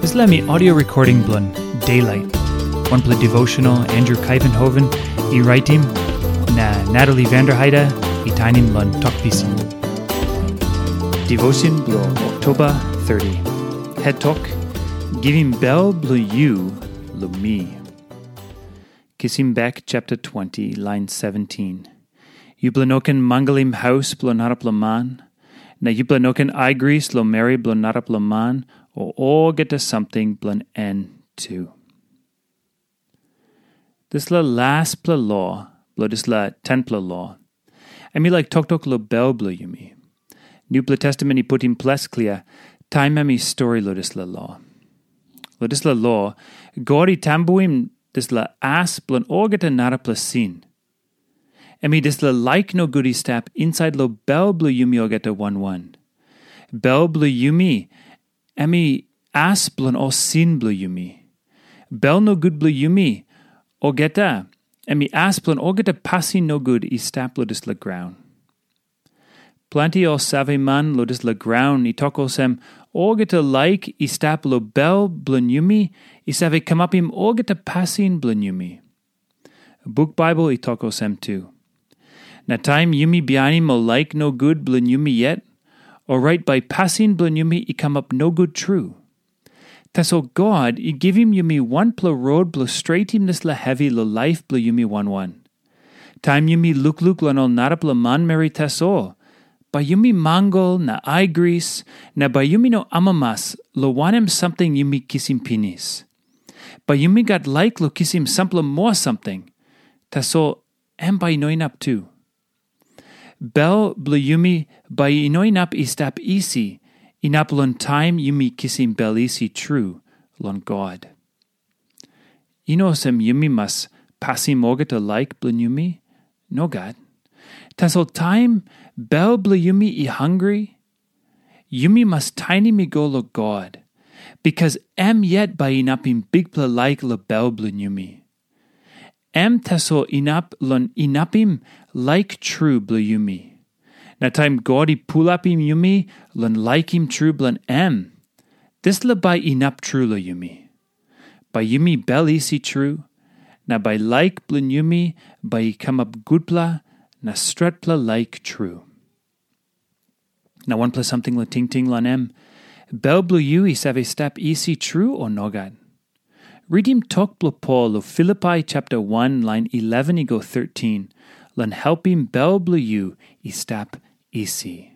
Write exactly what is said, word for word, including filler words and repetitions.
Dispela mi audio recording bilong Daylight, wanpela devotional Andrew Kuyvenhoven i raitim, na Natalie Vanderheide i tainim long Tok Pisin. Devotion bilong Oktoba thirty. Het tok, Givim bel bilong yu long mi. Kisim bek chapter twenty, line seventeen. Yupela no ken mangalim haus bilong narapela man, na yupela no ken aigris long meri bilong narapela man, o olgeta samting bilong en tu. Dispela laspela lo bilong dispela tenpela lo, em i laik toktok long bel bilong yumi. Nupela Testamen i putim ples klia, taim em i stori long dispela lo. Long dispela lo, God i tambuim dispela as bilong olgeta narapela sin. Em i dispela laik nogut i stap insait long bel bilong yumi olgeta wan wan. Bel bilong yumi, em i as bilong ol sin bilong yumi. Bel nogut bilong yumi olgeta, em i as bilong olgeta pasin nogut i stap long dispela graun. Planti ol saveman long dispela graun i tok olsem, olgeta laik i stap long bel bilong yumi i save kamapim olgeta pasin bilong yumi. Buk Baibel i tok olsem tu. Na taim yumi bihainim ol laik nogut bilong yumi yet, orait bai pasin bilong yumi i kamap nogut tru. Tasol God i givim yumi wanpela rot bilong stretim dispela hevi long laip bilong yumi wan wan. Taim yumi lukluk long ol narapela manmeri tasol, bai yumi mangal na aigris, na bai yumi no amamas long wanem samting yumi kisim pinis. Bai yumi gat laik long kisim sampela moa samting, tasol em bai i no inap tu. Bel bilong yumi bai i no inap i stap isi, inap long taim yumi kisim bel isi tru long God. I no olsem yumi mas pasim olgeta laik bilong yumi. Nogat. Tasol taim bel bilong yumi i hangre, yumi mas tainim i go long God, bikas em yet bai inapim bikpela laik long bel bilong yumi. Em tasol inap long inapim laik tru bilong yumi. Na taim God i pulapim yumi long laikim tru bilong em, dispela bai inap tru long yumi. Bai yumi bel isi tru, na bai laik bilong yumi bai i kamap gutpela na stretpela laik tru. Na wanpela samting long tingting long em, bel bilong yu i save stap isi tru o nogat? Ritim tok bilong Pol long Filipai chapter one lain eleven i go thirteen, long helpim bel bilong yu i stap isi.